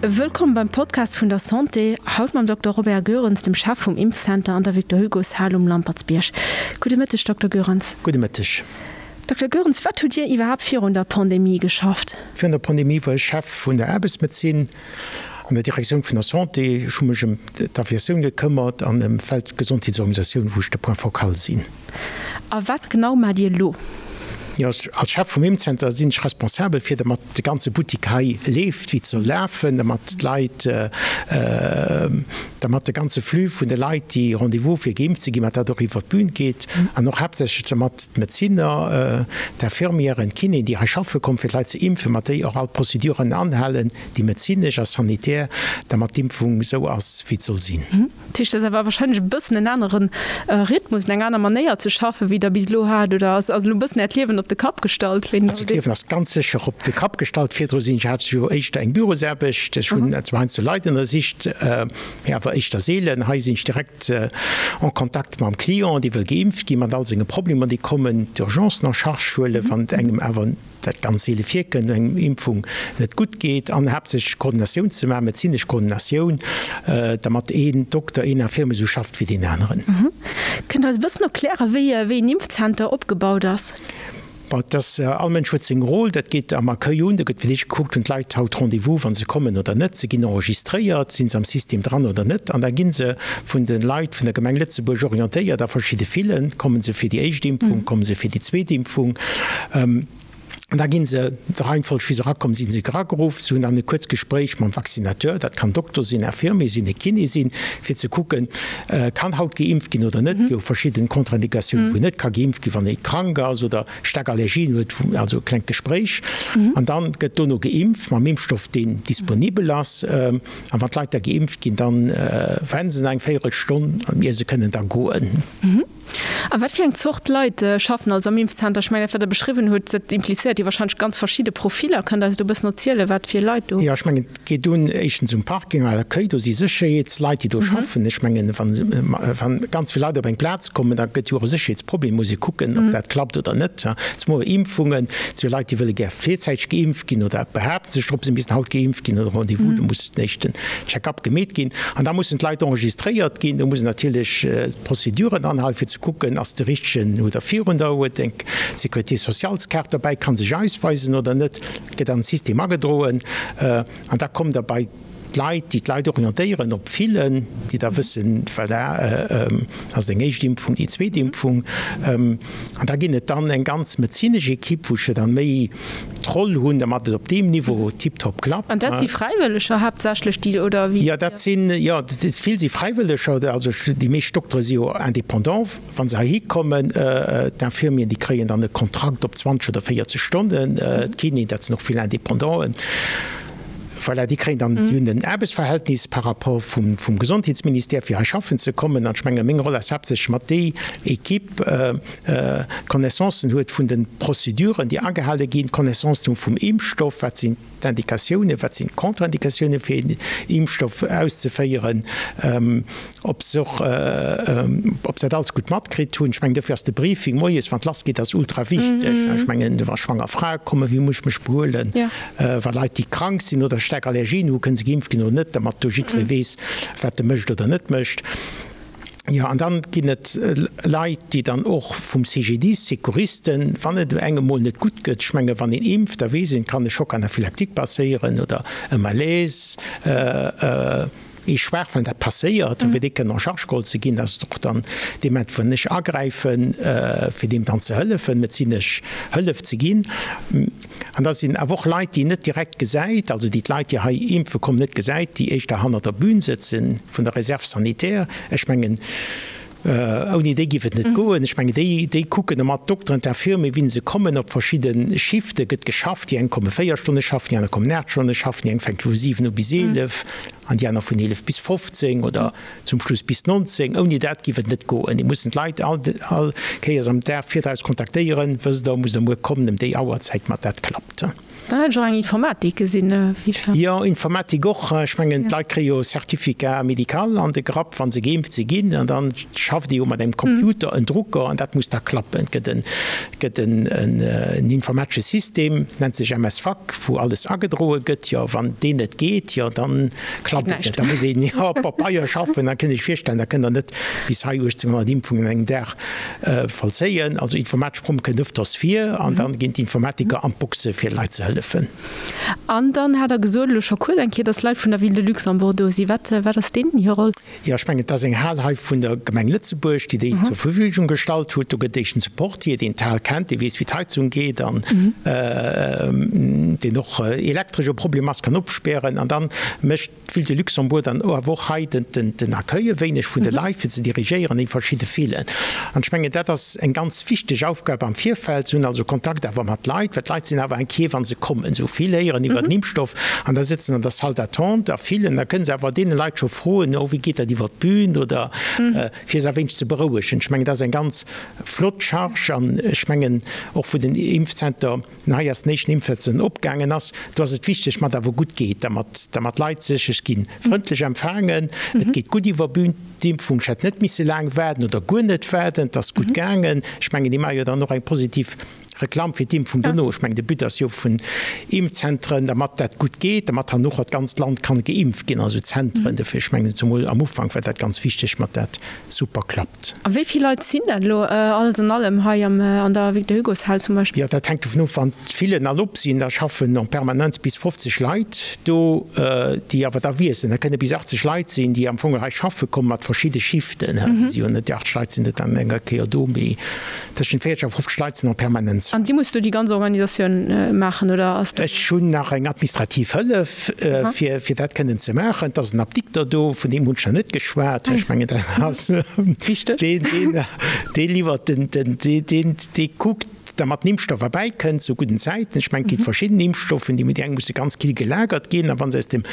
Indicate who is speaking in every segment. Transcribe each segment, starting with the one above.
Speaker 1: Wëllkomm beim Podcast vun der Santé, haut mam Dokter Robert Goerens, dem Chef vum Impfcenter an der Victor Hugo's Hal um Lampertsbierg. Gudde Mëtteg, Dokter Goerens.
Speaker 2: Gudde Mëtteg.
Speaker 1: Dokter Goerens, wat hutt Dir iwwerhaapt virun der Pandemie geschafft?
Speaker 2: Virun der Pandemie war ech Chef vun der Aarbechtsmedezin an der Direktioun vun der Santé. Ech hu mech ëm d'Aviatioun gekëmmert an ëm d'Weltgesondheetsorganisatioun, wou ech de Point focal sinn.
Speaker 1: A wat genau maacht Dir elo?
Speaker 2: Jo, als Chef vum Impfzenter sinn ech responsabel fir dermat de ganze Buttik hei leeft wéi et soll lafen, dermat d'Leit, dermat de ganze Flux vun de Leit, déi Rendez-vous fir geimpft ze ginn, mat dat och iwwer d'Bün geet an och haaptsächlech dermat d'Medezinner, d'Infirmieren, d'Kinéen, déi hei schaffe kommen, fir d'Leit ze impfen, mat déi och all d'Prozeduren anhalen, déi medezinesch a sanitär, dermat d'Impfung esou ass wéi et soll sinn.
Speaker 1: Dat heescht, dat ass awer wahrscheinlech e bëssen en anere Rhythmus, eng aner Manéier ze schaffen, wéi Der bis elo hat, oder ass elo e bëssen Äert Liewen op de Kapp gestallt?
Speaker 2: Wéi Also d'Liewen ass ganz sécher op de Kapp gestallt. Virdru sinn ech, hat ech jo éischter eng Bürosaarbecht. Ech hunn zwar heiansdo Leit ënnersicht, mee awer éischter seelen. Hei sinn ech direkt en Kontakt mam Client, dee wëll geimpft ginn, mat all senge Problemer, déi kommen, d'Urgencen en charge huelen, wann et engem awer, dat ganz seele virkënnt, eng Impfung net gutt geet, an haaptsächlech Koordinatioun ze maachen, medezinesch Koordinatioun, dermat een Dokter, een Infirmier esou schafft wéi deen aneren.
Speaker 1: Kënnt Der eis e bëssen erklären, wéi een Impfzenter opgebaut ass?
Speaker 2: Bon, et ass, all Mënsch huet seng Rôle. Dat geet am Accueil un, do gëtt fir d'éischt gekuckt, hunn d'Leit haut Rendez-vous, wa se kommen oder net, se ginn enregistréiert, si se am System dran oder net, an da gi se vun de Leit vun der Gemeng Lëtzebuerg orientéiert a verschidde Filen, komme se fir déi éischt Impfung, komme se fir déi zweet Impfung. An da gi se, der Reihenfolg wéi se erakomm sinn, si erageruff. Se hunn dann e kuerzt Gespréich mam Vaccinateur, dat kann Dokter sinn, Infirmier sinn, e Kiné sinn, fir ze kucken, kann haut geimpft ginn oder net. Et gi jo verschidden Contre-indicatiounen, wou net ka geimpft ginn, wann ee krank ass oder staark Allergien huet, also e klengt Gespréich. An dann gëtt dono geimpft mam Impfstoff, deen disponibel ass. A wann d'Leit da geimpft ginn, dann waarden se nach eng Véierelstonn, ier se kënnen da goen.
Speaker 1: A wat fir eng Zort Leit schaffen also am Impfzenter? Ech mengen, dat wat Der beschriwwen hutt, dat implizéiert jo wahrscheinlech ganz verschidde Profiller. Kënnt Der eis do e bëssen erzielen, wat fir Leit do.
Speaker 2: Jo, ech mengen, et geet un éischtens um Parking, à l'accueil, do si Sécherheetsleit, déi do schaffen. Ech mengen, wann ganz vill Leit op eng Plaz kommen, da gëtt jo och e Sécherheetsproblem, muss ee kucken, ob dat klappt oder net. Zemol Impfungen, et si jo Leit, déi wëlle gär virzäiteg geimpft ginn oder behaapte sech drop, se missten haut geimpft ginn oder Rendez-vous, do muss den éischten Check-up gemeet ginn. An da mussen d'Leit enregistréiert ginn, do muss natierlech d'Prozeduren anhalen, fir ze kucken, ass de richtegen oder virun der, huet eng Sécurité-sociales-Kaart derbäi, kann sech ausweisen oder net, gëtt an den System agedroen. An da kommt Der bei d'Leit, déi d'Leit orientéieren op Fillen, déi da wëssen, voilà, ass et eng éischt Impfung, déi zweet Impfung. An da ginn et dann eng ganz medezinesch Ekipp, wou ech jo dann méi d'Roll hunn, dermat et op deem Niveau tiptop klappt.
Speaker 1: An dat si Fräiwëlleger haaptsächlech, déi, oder
Speaker 2: wéi? Jo, dat sinn, jo, vill si Fräiwëlleger. Also déi meescht Doktere si jo indépendant, wa se heihi kommen. D'Infirmieren, déi kréien dann e Kontrakt op 20 oder 40 Stonnen. D'Kinéen, dat sinn och vill Indépendanten. Voilà, déi kréien dann, déi hunn en Aarbechtsverhältnis par rapport vum Gesondheetsministère, fir hei schaffen ze kommen. An ech menge meng Roll ass haaptsächlech mat déi Equipe d'Connaissancen huet vun de Prozeduren, déi agehale ginn, d'Connaissance hu vum Impfstoff, wat sinn d'Indikatiounen, wat sinn d'Contraindikatiounen, fir een Impfstoff auszeféieren, ob se och, ob se dat alles gutt matkritt hunn. Ech mengen, dofir ass de Briefing moies, wann et lassgeet, ass ultra wichteg. Ech mengen, wa schwanger Frae kommen, wéi muss ech mech behuelen? Wa Leit, déi krank sinn oder staark Allergien hu, kënne se geimpft ginn oder net, dermat do jiddweree weess, wat e mécht oder net mécht. Jo, an dann ginn et Leit, déi dann och vum CGDIS, Secouristen, wann et engem mol net gutt gëtt, ech menge wann een impft, da weess een, et kann e Choc anaphylactique passéieren oder e Malaise, ee schwaach, wann dat passéiert, fir dee kënnen en charge geholl ze ginn, dat ass och dann dee Moment, wou ech agräifen, fir deem dann ze hëllefen, medezinesch Hëllef ze ginn. An da sinn awer och Leit, déi een net direkt gesäit, also déi d'Leit, déi hei impfe kommen, net gesäit, déi éischter hannert der Bühn sëtzen, vun der Réserve sanitaire. Ech mengen, ouni déi géif et net goen. Ech mengen, déi, déi kucken ëmmer, d'Dokteren, d'Infirmier, wéi se kommen. Op verschidde Shifte gëtt geschafft. Déi eng komme 4 Stonne schaffen, déi aner kommen 8 Stonne schaffen, déi eng fänke vu 7 u bis 11 an déi aner vun 11 bis 15 oder zum Schluss bis 19. Ouni dat giff et net goen. Déi mussen d'Leit all all Kéiers am Dag virdraus kontaktéieren, Wësst Der, musst Der muer kommen ëm déi Auerzäit, mat dat klappt.
Speaker 1: Dann hat ech och eng Informatik gesinn, wéi ech war.
Speaker 2: Jo, Informatik och. Ech mengen, d'Leit kréie jo e Certificat médical an de Grapp, wa se geimpft si ginn. An da schafft ee jo mat engem Computer, en Drucker, an dat muss da klappen. Et gëtt en, gëtt en, en informatesche System, nennt sech MS-Fac, wou alles agedroe gëtt. Jo, wann deen net geet, jo, da klappt et net. Da muss een jo op Pabeier schaffen. Da kënnt Iech virstellen, da kënnt Der net bis hei 1.800 Impfungen an engem Dag Vollzéien. Also informatesch Promme kënnt ëfters vir an dann ginn d'Informatiker an d'Boxe fir de Leit ze hëllefen.
Speaker 1: An dann hat Der gesot elo scho kuerz eng Kéier, dass Leit vun der Ville de Luxembourg do sinn. Wat, wat ass deenen hir Roll?
Speaker 2: Jo, ech mengen, et ass eng Hal hei vun der Gemeng Lëtzebuerg, déi déi zur Verfügung gestallt huet. Do gëtt éischtens e Portier, deen d'Hal kennt, dee weess, wéi d'Heizung geet an deen och elektresch e Problem ass, kann opspären. An dann mécht D'Ville de Luxembourg dann awer och hei den Accueil e wéineg vun de Leit, fir ze dirigéieren déi verschidde Villen. An ech mengen, dat ass eng ganz wichteg Aufgab am Virfeld. Se hunn also Kontakt awer mat Leit, well d'Leit sinn awer inquiet, wa se kommen. Se hu vill héieren iwwer den Impfstoff an da sëtzen an der Salle d'attente a villen. Da kënne se awer deene Leit scho froen, oh wéi geet dat iwwer d'Bün oder fir se e wéineg ze berouegen. Ech mengen, dat ass eng ganz flott Charge an ech mengen och wou den Impfzenter, Den hei ass den éischten Impfwetz en opgaangen ass. Do ass et wichteg, mat awer gutt geet, dermat dermat d'Leit sech, ech ginn frëndlech empfaangen, et geet gutt iwwer Bühn, d'Impfung, ech hätt net misse laang waarden oder guer net waarden, et ass gutt gaangen. Ech mengen, déi maache jo dann och eng positiv Reklamm fir d'Impfung dono. Ech mengen, de But ass jo vun Impfzentren, dermat dat gutt geet, dermat herno och dat ganzt Land kann geimpft ginn, also Zentren. Dofir, ech mengen, zemol am Ufank war dat ganz wichteg, mat dat super klappt.
Speaker 1: A wéi vill Leit sinn dat elo alles an allem hei an der Victor-Hugo-Shal zum Beispill?
Speaker 2: Jo, dat hänkt dovun of, wann d'Villen all op sinn, da schaffen en permanence bis 50 Leit do, déi awer da wiesselen. Da kënne bis 80 Leit sinn, déi am Fong hei schaffe kommen, mat verschidde Shiften. Déi si jo net, déi 80 Leit sinn net an enger Kéier do, mee tëschent 40 a 50 Leit sinn en permanence.
Speaker 1: An Dir musst do déi ganz Organisatioun maachen, oder ass do?
Speaker 2: Ech hunn nach eng administrativ Hëllef. Fir fir dat kënnen ze maachen. Et ass en Apdikter do, vun deem hunn ech nach net geschwat. Ech mengen, dat ass deen, deen, dee liwwert den, den, dee, deen, dee kuckt, dermat den Impfstoff erbäikënnt zu gudden Zäiten. Ech mengen, et gi verschidden Impfstoffen, déi, déi eng musse ganz kill gelagert ginn, a wa se aus dem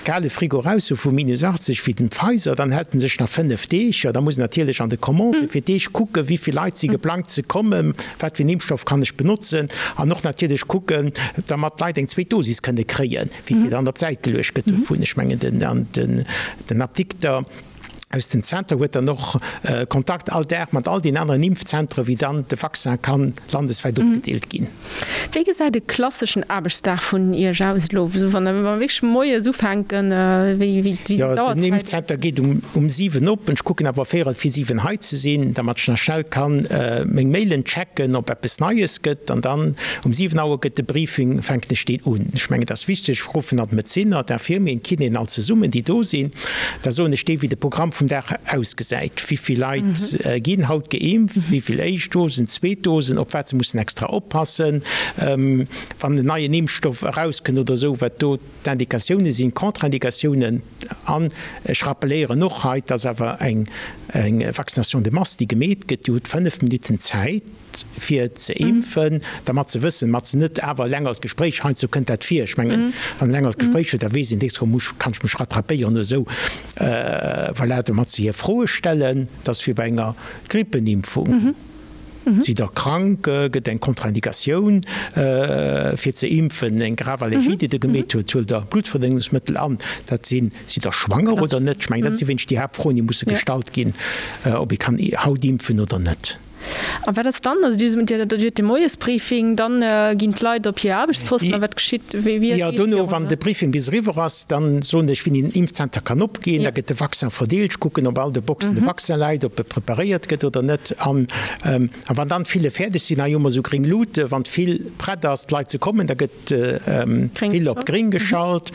Speaker 2: kale Frigo eraus si vu minus 80 wéi den Pfizer, dann hält en sech nach 5 Deeg. Jo, da muss en natierlech an de Commandë fir d'Deeg kucken, wéi vill Leit si geplangt ze kommen, Wat fir en Impfstoff kann ech benotzen? An och natierlech kucken, dermat d'Leit eng zweet Dosis kënne kréien, wéi vill dann op d'Säit geluecht gëtt dovun. Ech mengen, den Apdikter aus dem Zenter huet dann och Kontakt all Dag mat all den aneren Impfzentere, wéi dann de Vaccin kann landeswäit opgedeelt ginn.
Speaker 1: Wéi gesäit e klasseschen Aarbechtsdag vun Iech aus elo, wa mer wierklech moies ufänken? Wéi sinn
Speaker 2: d'Auerzäiten? Den Impfzenter geet um 7 op. Ech kucken awer véierel vir 7 hei ze sinn, dermat ech nach schnell kann meng Mailen checken, ob eppes Neies gëtt. An dann um 7 Auer gëtt de Briefing, fänken ech deen un. Ech mengen, et ass wichteg, ech ruffen an d'Medezinner, d'Infirmieren, d'Kinéen all zesummen, déi do sinn. Da soen ech déi, wéi de Programm vum Dag ausgesäit, wéi vill Leit ginn haut geimpft, wéi vill éischt Dosen, zweet Dosen, op wat se mussen extra oppassen, wann en neien Impfstoff erauskënnt oder esou, wat do d'Indikatioune sinn, d'Contraindikatiounen. An ech rappeléieren och hei, et ass awer eng Vaccination de masse, déi gemeet gëtt. Dir hutt 5 Minutten Zäit. fir ze impfen, dermat ze wëssen, mat se net awer e längert Gespréich, heiansdo kënnt dat vir, ech mengen, wann e längert Gespréich huet, da weess een, nächst Woch muss, kann ech mech rattrapéieren oder esou, voilà, domat se hir Froe stellen, dat ass wéi bei enger Grippenimpfung, sidd Der krank, gëtt eng Kontraindikatioun fir ze impfen, eng grave Allergie, déi Der gemeet huet, huelt Der Bluttverdënnungsmëttel an, dat sinn, sidd Der schwanger oder net, ech mengen, dat si wéinst déi Haaptfroen, déi musse gestallt ginn, ob ee kann haut impfen oder net.
Speaker 1: A wat ass dann? Also Dir hutt de Moiesbriefing, dann ginn d'Leit op hir Aarbechtsposten a wat geschitt? Wéi
Speaker 2: geet et virun? Jo, dono, wann de Briefing bis eriwwer ass, dann soen ech, wéini den Impfzenter kann opginn. Da gëtt de Vaccin verdeelt. Ech kucken, ob all de Boxen de Vaccin läit, ob e preparéiert gëtt oder net. An wann dann d'File fäerdeg sinn, hei hu mer esou gréng Luuten, wann d'Fil prett ass, d'Leit ze kommen, da gëtt d'Fil op gréng geschalt.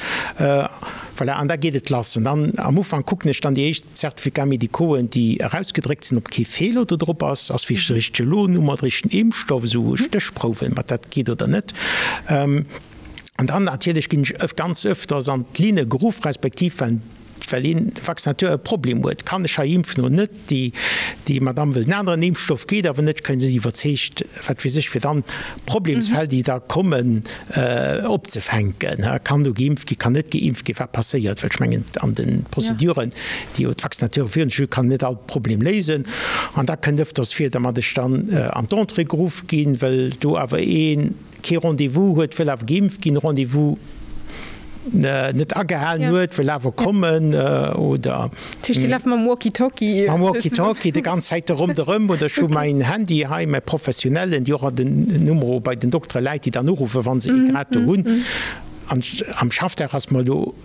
Speaker 2: Voilà, an da geet et lass. An dann am Ufank kucken ech dann déi éischt Certificats médicauxen, déi erausgedréckt sinn, ob kee Feeler do drop ass, ass wierklech de richtege Lot-Nummer, de richtegen Impfstoff, esou Stéchprouwen, mat dat geet oder net. An dann natierlech ginn ech ganz öfters an d'Linne geruff, respektiv well well een Vaccinateur e Problem huet, kann ech hei impfen oder net? Déi, déi Madame wëllt en aneren Impfstoff, geet awer net, kréien se iwwerzeegt, wat weess ech, fir dann d'Problemsfäll, déi da kommen, opzefänken. Kann do geimpft ginn, kann net geimpft ginn, wat passéiert? Well ech mengen, an de Prozeduren, déi jo d'Vaccinateure virun sech hunn, kann net all Problem léisen. An da kënnt ëfters vir, datt ech dann an d'Entrée geruff ginn, well do awer ee. kee Rendez-vous huet, wëll awer geimpft ginn, Rendez-vous net agehalen huet, wëll awer kommen oder.
Speaker 1: Dat heescht, Dir laaft mam Walkie-Talkie?
Speaker 2: Mam Walkie-Talkie déi ganz Zäit ronderëm oder ech hu mäin Handy hei, mäi professionellen, déi och an den Numero bei den Doktere läit, déi dann uruffen, wa se ee grad do hunn. An am Schaffdag ass mer elo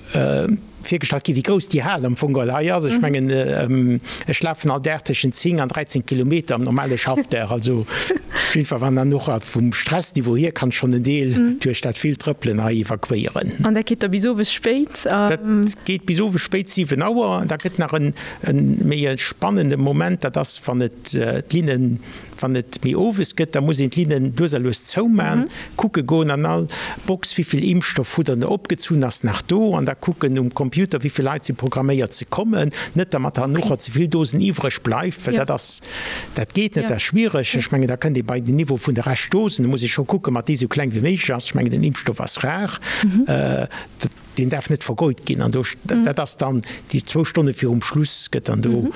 Speaker 2: virgestallt ginn, wéi grouss déi Hal am Fong geholl hei ass. Ech mengen, ech lafen all Dag tëschent 10 an 13 Kilometer am normale Schaffdag. Also op jiddwer Fall, wann dann och vum Stressniveau hier, kann ech schonn en Deel duerch dat villt Trëppelen hei evakuéieren.
Speaker 1: An dat geet da bis owes spéit?
Speaker 2: Dat geet bis owes spéit, 7 Auer. Da gëtt nach e méi e spannende Moment, dat ass, wann et d'Linnen Wann et méi owes gëtt, da muss een d'Linnen lues a lues zouman, kucke goen an all Box, wéivill Impfstoff hutt der der opgezunn, ass nach do, an da kucken um Computer, wéivill Leit si programméiert ze kommen, net dermat hernocher ze vill Dosen iwwreg bleift, well dat ass, dat geet net, dat ass schwiereg. Ech mengen, da kënnt ee bei den Niveau vun de Reschtdosen, da muss ee scho kucken, mat déi esou kleng wéi méiglech ass. Ech mengen, den Impfstoff ass rar. Deen däerf net vergeut ginn. An do, dat ass dann déi zwou Stonne virum Schluss, gëtt dann do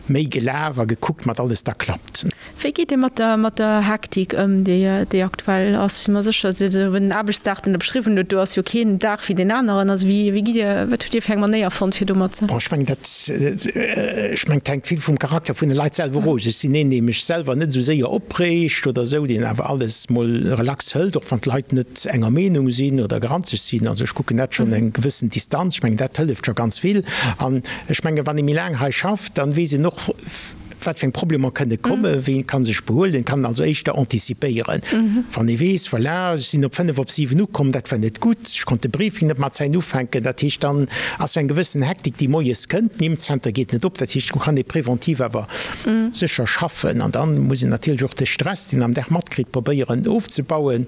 Speaker 2: méi gelaf a gekuckt, mat alles da klappt.
Speaker 1: Wéi geet Dir mat der, mat der Hektik ëm, déi, déi aktuell ass? Ech si mer sécher, esou den Aarbechtsdag, deen Der beschriwwen hutt, do ass jo keen Dag wéi deen aneren. Also wéi, wéi gitt Dir, wat hutt Dir fir eng Manéier fonnt, fir domat ze.
Speaker 2: Bon, ech mengen, dat, ech mengen, et hänkt vill vum Charakter vun de Leit selwer of. Ech sinn een, dee mech selwer net esou séier opreegt oder esou, deen awer alles mol relax hëlt, och wann d'Leit net enger Meenung sinn oder granzeg sinn. Also ech kucken dat schonn eng gewëssen Distanz. Ech mengen, dat hëlleft scho ganz vill. An ech mengen, wann ee méi laang hei schafft, dann weess een och, wat fir eng Problemer kënne kommen, wéi een ka sech behuelen, kann also éischter antizipéieren. Wann ee weess, voilà, ech sinn op 5 op 7 ukomm, dat war net gutt, ech konnt de Briefing net mat Zäit ufänken, dat heescht, dann ass sou eng gewëssen Hektik, déi moies kënnt, den Impfzenter geet net op, dat heescht, do kann ee preventiv awer sécher schaffen. An dann muss een natierlech och de Stress, deen een am Dag matkritt, probéieren ofzebauen.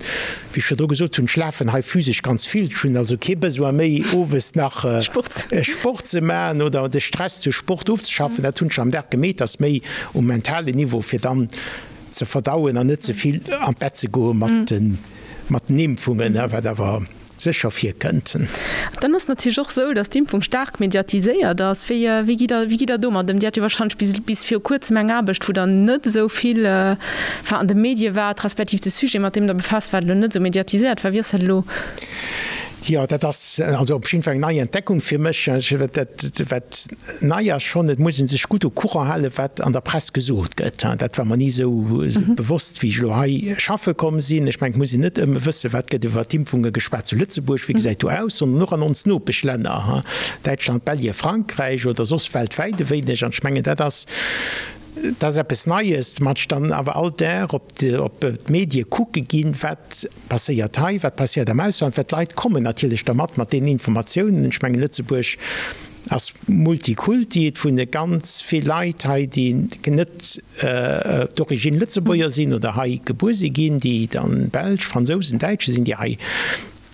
Speaker 2: Wéi ech virdru gesot hunn, ech lafen hei physesch ganz vill. Ech hunn also kee Besoin méi, owes nach Sport ze maachen oder de Stress duerch Sport ofzeschaffen. Dat hunn ech am Dag gemeet, ass méi um mentalen Niveau, fir dann ze verdauen an net ze vill an d'Bett ze goe mat den Impfungen, wat awer sécher virkënnt.
Speaker 1: Dann ass et natierlech och esou, datt d'Impfung staark mediatiséiert ass. Wéi, wéi gitt Der, wéi gitt Der domat ëm? Dir hat jo wahrscheinlech bis, bis viru kuerzem eng Aarbecht, wou Der net esou vill, enfin, an de Medie waart, respektiv de Sujet, mat deem Der befaasst waart, elo net esou mediatiséiert war. Wéi ass dat elo?
Speaker 2: Jo, dat ass also op jidde Fall eng nei Entdeckung fir mech. Dat, wat nei ass schonn, et muss ee sech gutt au courant halen, wat an der Press gesot gëtt. Dat war mer ni esou bewosst, wéi ech elo hei schaffe komm sinn. Ech mengen, et muss een net ëmme wëssen, wat gëtt iwwer d'Impfunge geschwat zu Lëtzebuerg, wéi gesäit do aus, sondern och an ons Nopeschlänner, Däitschland, Belge, Frankräich oder soss weltwäit e wéineg. An ech mengen, dat ass, dat ass eppes Neies, mat ech dann awer all Dag op d'Medie kucke ginn, wat passéiert hei, wat passéiert am Ausland, well d'Leit kommen natierlech da mat, mat deenen Informatiounen. Ech mengen, Lëtzebuerg ass Multikulti, et wunne ganz vill Leit hei, déi net d'origine Lëtzebuerger sinn oder hei gebuer si ginn, déi dann Belsch, Fransousen, Däitsche sinn, déi hei,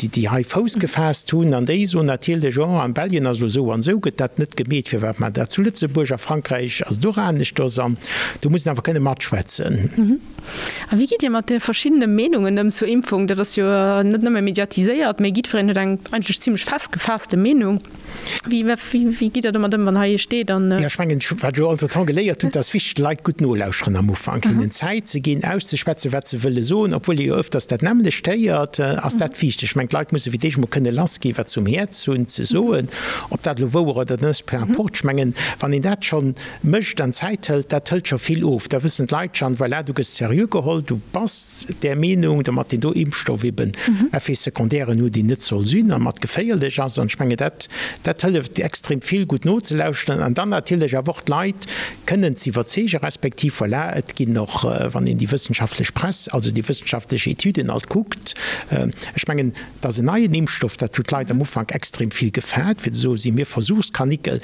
Speaker 2: déi hei Fouss gefaasst hunn. An déi soen natierlech, Oh, an Belgien ass elo esou an esou, gëtt dat net gemeet, firwat maacht Der dat zu Lëtzebuerg? A Frankräich ass et och aneschters. An do muss een awer kënne matschwätzen.
Speaker 1: A wéi gitt Dir mat de verschiddene Meenungen ëm zur Impfung? Dat ass jo net nëmme mediatiséiert, mee jiddwereen huet eng eigentlech zimlech festgefaasste Meenung. Wéi, wéi gitt Der domat ëm, wann hei ee steet an.
Speaker 2: Jo, ech mengen, wat ech elo entretemps geléiert hunn, et ass wichteg, de Leit gutt nolauschteren am Ufank, hinnen Zäit ze ginn, auszeschwätzen, wat se wëlle soen, obwuel ee jo öfters dat nämmlecht héiert, ass dat wichteg. Ech mengen, d'Leit musse fir d'éischt emol kënne lassginn, wat se um Häerz hunn ze soen, ob dat elo wouer oder net ass, peu importe. Ech mengen, wann een dat schonn mécht an Zäit hëlt, dat hëlt scho vill of. Da wëssen d'Leit schonn, voilà, du gëss seriö geholl, du bass där Meenung, domat deen do Impfstoff eben Effets secondairen huet, déi net soll sinn a mat geféierlech ass. An ech mengen, dat, dat hëlleft extrem vill, gutt nozelauschteren an dann natierlech awer och d'Leit kënnen ze iwwerzeegen, respektiv, voilà, et ginn och, wann een déi wëssenschaftlech Press, also déi wëssenschaftlech Etüden alt kuckt, ech mengen, Et ass en neien Impfstoff, dat huet d'Leit am Ufank extrem vill gefaart, fir ze soen, si mir Versuchskanickel.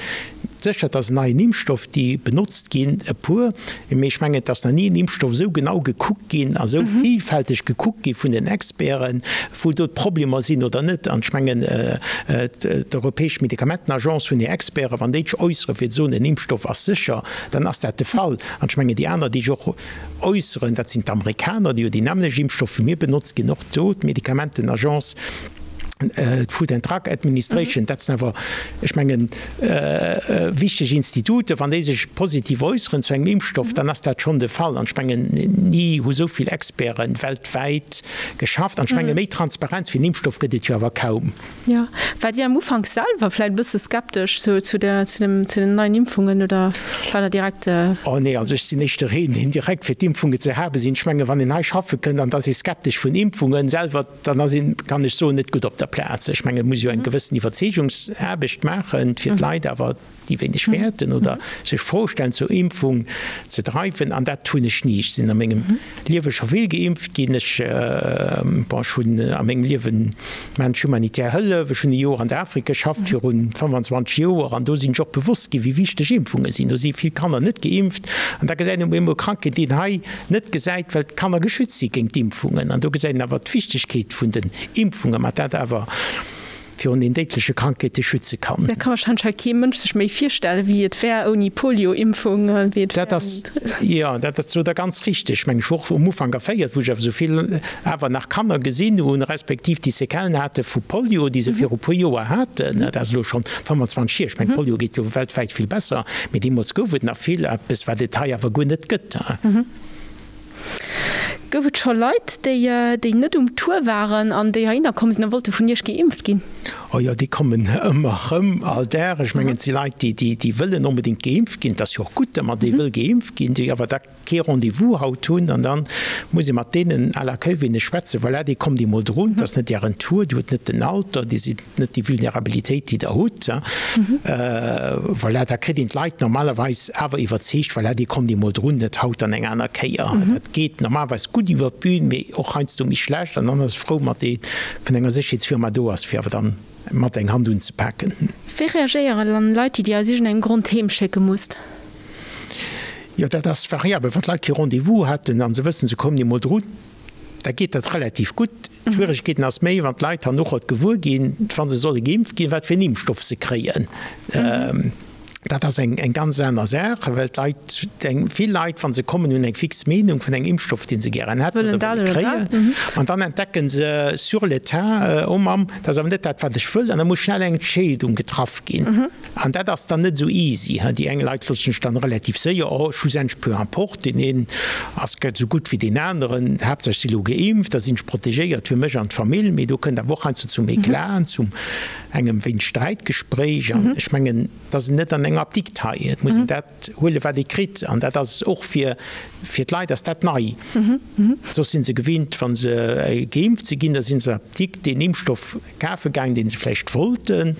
Speaker 2: Sécher, et ass en neien Impfstoff, déi benotzt ginn e puer, mee ech mengen, et ass nach ni en Impfstoff esou genau gekuckt ginn a sou villfälteg gekuckt gi vun den Experten, wou do d'Problemer sinn oder net. An ech mengen, d'Europäesch Medikamentenagence hunn hir Experten, wann déi sech äusseren, fir ze soen, en Impfstoff ass sécher, dann ass dat de Fall. An ech mengen, déi aner, déi sech och äusseren, dat sinn d'Amerikaner, déi jo déi nämmlecht Impfstoff wéi mir benotzt ginn, och do d'Medikamentenagence. D'Food and Drug Administration, dat sinn awer, ech mengen, wichteg Instituten. Wann déi sech positiv äusseren zu engem Impfstoff, dann ass dat schonn de Fall. An ech mengen, ni hu sou vill Experte weltwäit geschafft. An ech menge méi Transparenz fir en Impfstoff gëtt et jo awer kaum.
Speaker 1: Jo. Waart Dir am Ufank selwer vläicht e bësse skeptesch zu zu der zu dem zu den neien Impfungen oder war der direkt?
Speaker 2: Oh nee, also ech sinn éischter een, deen direkt fir d'Impfungen ze habe sinn. Ech menge wann een hei schaffe kënnt an et ass ee skeptesch vun Impfungen selwer, dann ass een, kann ech soen, net gutt op der Plaz. Ech mengen, et muss jo eng gewëssen Iwwerzeegungsaarbecht maachen, fir d'Leit awer, déi wéineg wäerten oder sech Fro stellen, zur Impfung ze dreiwen. An dat hunn ech ni. Ech sinn a mengem Liewe scho vill geimpft ginn. Ech, bon, ech hunn a mengem Liewen maachen ech humanitär Hëllef. Ech hunn e Joer an der Afrik geschafft virun 25 Joer an do sinn ech och bewosst ginn, wéi wichteg Impfunge sinn. Do si vill Kanner net geimpft an da gesäit een op eemol Krankheet, déi een hei net gesäit, well d'Kanner geschützt si géint d'Impfungen. An do gesäit een awer d'Wichtegkeet vun den Impfungen, mat dat awer virun den déidleche Krankheete schütze kann.
Speaker 1: Dat ka warscheinlech hei kee Mënsch sech méi virstellen, wéi et wär ouni Polio-Impfung, wéi et
Speaker 2: wär ouni. Jo, dat ass sot Der ganz richteg. Ech mengen, ech wor och um Ufank erféiert, wou ech awer esou vill awer nach Kanner gesinn hunn, respektiv déi Séquellen hate vu Polio, déi se viru puer Joer haten. Dat ass elo schonn 25 hier. Ech mengen, Polio geet jo weltwäit vill besser, mee deemools gouf et nach vill, eppes wat et hei awer guer net gëtt.
Speaker 1: Gouf et scho Leit, déi déi net um Tour waren an déi heihinner komm sinn a wollte vun Iech geimpft ginn?
Speaker 2: Oh jo, déi kommen ëmmer erëm, all Dag. Ech mengen, et si Leit, déi déi wëllen onbedéngt geimpft ginn. Et ass jo och gutt, datt ee wëll geimpft ginn, déi awer da kee Rendez-vous haut hunn. An da muss ee mat deenen à l'accueil wéineg schwätzen, Voilà, dir kommt emol drun, et ass net Ären Tour, Dir hutt net den Alter, Dir sidd net déi Vulnerabilitéit, déi Der hutt. Voilà, da kritt een d'Leit normalerweis awer iwwerzeegt, voilà, Dir kommt emol drun, net haut, dann eng aner Kéier. Dat geet normalerweis gutt iwwer d'Bün, mee och heiansdo méi schlecht. An dann ass e frou, mat dee vun enger Sécherheetsfirma do ass, fir awer dann mat eng Hand unzepaken.
Speaker 1: Wéi reagéieren dann Leit, déi Dir aus iergendengem Grond heem schécke musst?
Speaker 2: Jo, dat ass variabel. Wann d'Leit kee Rendez-vous haten a se wëssen, se kommen emol drun, da geet dat relativ gutt. D'Schwieregkeeten ass méi, wann d'Leit herno gewuer ginn, wa se solle geimpft ginn, wat fir en Impfstoff se kréien. Dat ass eng ganz aner Saach, well d'Leit, vill Leit, wa se kommen, hunn eng fix Meenung vun engem Impfstoff, dee se gären hätten oder wëlle kréien. An dann entdecken se sur le tas, Oh Mamm, dat ass awer net dat, wat ech wëll. An da muss schnell eng Entscheedung getraff ginn. An dat ass dann net esou easy. Déi eng Leit loossen sech dann relativ séier, oh, schlussendlech peu importe, deen een ass esou gutt wéi deen aneren, Haaptsaach ech si lo geimpft, da sinn ech protegéiert fir mech an d'Famill. Mee do kënnt awer och heiansdo zum Eclat, zu engem wéineg Sträitgespréich. An ech mengen, et ass net an enger Apdikt hei, et muss een dat huelen, wat ee kritt. An dat ass och fir d'Leit ass dat nei. Soss si se gewinnt, wa se geimpft si ginn, da si se an d'Apdikt deen Impfstoff kafe gaang, dee se vläicht wollten,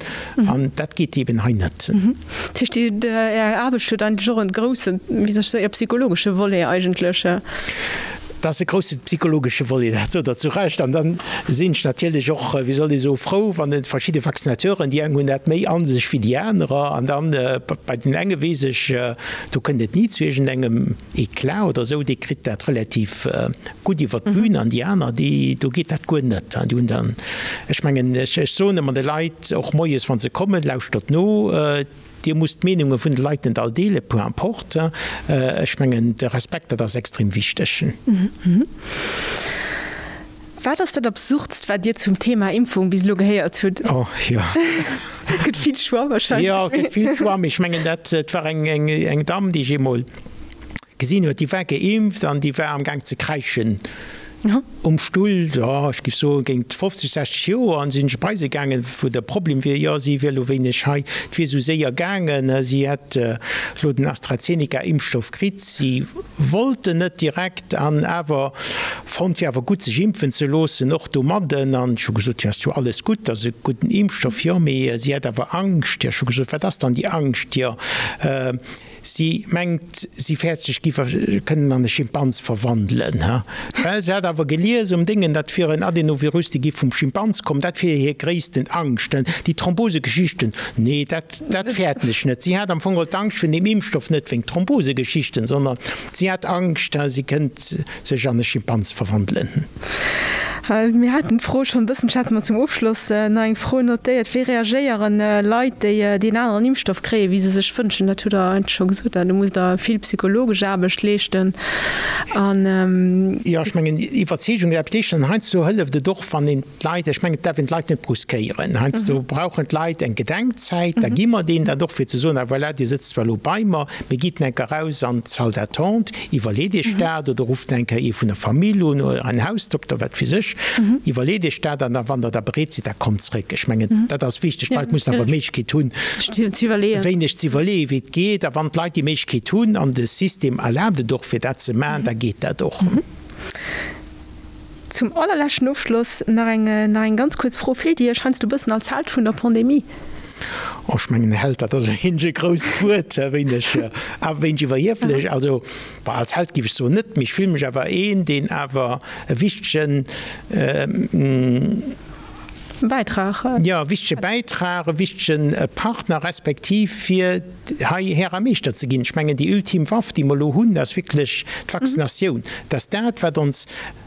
Speaker 2: an dat geet eben hei net.
Speaker 1: Dat heescht, Är Aarbecht huet eigentlech och e groussen, wéi soll ech soen, psychologesche Volet eigentlech?
Speaker 2: Dat ass e grousse psychologesche Volet, dat sot Der zu Recht. An da sinn ech natierlech och, wéi soll ee soen, frou, wann et verschidde Vaccinateuren, déi eng hunn dat méi a sech wéi déi anerer, an dann bei den enge weess ech, do kënnt et ni zu iergendengem Eclat oder esou, dee kritt dat relativ gutt iwwer d'Bün an déi aner, déi, do geet dat guer net. Déi hunn dann, ech mengen, ech soen ëmmer de Leit, och moies wa se kommen, Lauschtert no, Dir musst d'Meenunge vun de Leit net all deelen, peu importe. Ech mengen, de Respekt, dat ass extrem wichteg.
Speaker 1: Wat ass dat Absurdst, wat Dir zum Thema Impfung bis elo gehéiert hutt?
Speaker 2: Oh, jo.
Speaker 1: Gëtt vill Choix wahrscheinlech.
Speaker 2: Jo, gëtt vill Choix, mee ech mengen, dat war eng Damm, déi ech eemol gesinn huet, déi war geimpft an déi war am Gaang ze kräischen um Stull, jo, ech géif soen, géint 50, 60 Joer. An sinn ech bei se gaangen, wou de Problem wier, jo, si wier elo wéineg hei, et wier esou séier gaangen, si hätt elo den AstraZeneca-Impfstoff kritt, si wollt en net direkt an awer fonnt, wier awer gutt sech impfen ze loossen, och domadden. An ech hu gesot, jo, ass jo alles gutt, ass e gudden Impfstoff, jo, mee si hätt awer Angscht. Jo, ech hu gesot, wat ass dann déi Angscht? Jo, si mengt, si fäert sech giff kënnen an e Schimpans verwandelen, well se hätt awer gelies um Déngen, dat wier en Adenovirus, dee giff vum Schimpans kommen, dat wier hir gréissten Angscht. Déi Thrombosegeschichten, nee, dat, dat fäerten ech net. Si hat am Fong geholl d'Angscht vun deem Impfstoff net wéingt Thrombosegeschichten, sondern si hat Angscht, si kënnt sech an e Schimpans verwandelen.
Speaker 1: Mir haten d'Fro schonn e bëssen, ech hat mer zum Ofschloss nach eng Fro notéiert, Wéi reagéieren Leit, déi deen aneren Impfstoff kréien, wéi se sech wënschen? Dat hutt Der eigentlech scho gesot. Do musst Der vill psychologesch Aarbecht leeschten an.
Speaker 2: Jo, ech mengen, Iwwerzeegung aarbecht leeschten. An heiansdo hëlleft et och, wann een d'Leit, ech mengen, et däerf een d'Leit net bruskéieren. Heiansdo brauchen d'Leit eng Gedenkzäit, da gi mer deenen dat och, fir ze soen, ah voilà, Dir sëtzt zwar elo bei mer, mee gitt enker eraus an d'Salle d'attente, iwwerleet Iech dat oder rufft eng Kéier ee vun der Famill un oder en Hausdokter, wat weess ech, iwwerleet Iech dat an da wann Der da bereet sidd, da kommt zréck. Ech mengen, dat ass wichteg. D'Leit mussen awer d'Méiglechkeet hunn, e wéineg ze iwwerleeën, wéi et geet. A wann d'Leit déi Méiglechkeet hunn an de System erlaabt et och, fir dat ze maachen, da geet dat och.
Speaker 1: Zum allerleschten Ofschloss nach eng nach eng ganz kuerz Fro, Fillt Dir Iech heiansdo e bëssen als Held vun der Pandemie?
Speaker 2: Oh, ech mengen, Held, dat ass e wéineg e grousst Wuert, e wéineg, e wéineg iwwerhieflech. Also, bon, als Held géif ech soen net, mee ech fille mech awer een, deen awer e wichtegen,
Speaker 1: Bäitrag.
Speaker 2: Jo, e wichtege Bäitrag, e wichtege Partner respektiv fir hei Här a Meeschter ze ginn. Ech mengen, déi ultim Waff, déi mer elo hunn, ass wierklech d'Vaccinatioun. Dat ass dat, wat ons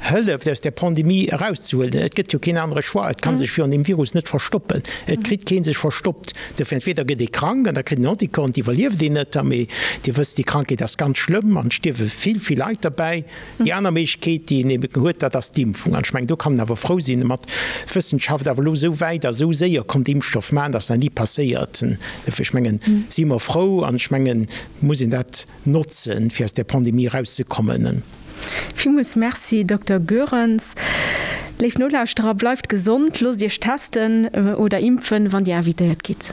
Speaker 2: hëlleft, aus där Pandemie erauszehuelen. Et gëtt jo keen anere Choix. Et ka sech virun deem Virus net verstoppen. Et kritt kee sech verstoppt. Dofir, entweder gëtt ee krank an da kritt een Anticorps an d'iwwerlieft een net. Mee Dir wësst, déi Krankheet ass ganz schlëmm an et stierwe vill, vill Leit derbäi. Déi aner Méiglechkeet, déi een eben huet, dat ass d'Impfung. An ech mengen, do kann een awer frou sinn, mat d'Wëssenschaft awer elo esou wäit a esou séier konnt Impfstoff maachen, dat ass nach ni passéiert. Dofir, ech mengen, si mer frou an ech mengen, muss een dat notzen, fir aus där Pandemie erauszekommen.
Speaker 1: Villmools Merci, Dokter Goerens. Léif Nolauschterer, bleift gesond, loosst Iech testen oder impfen, wann Dir invitéiert gitt.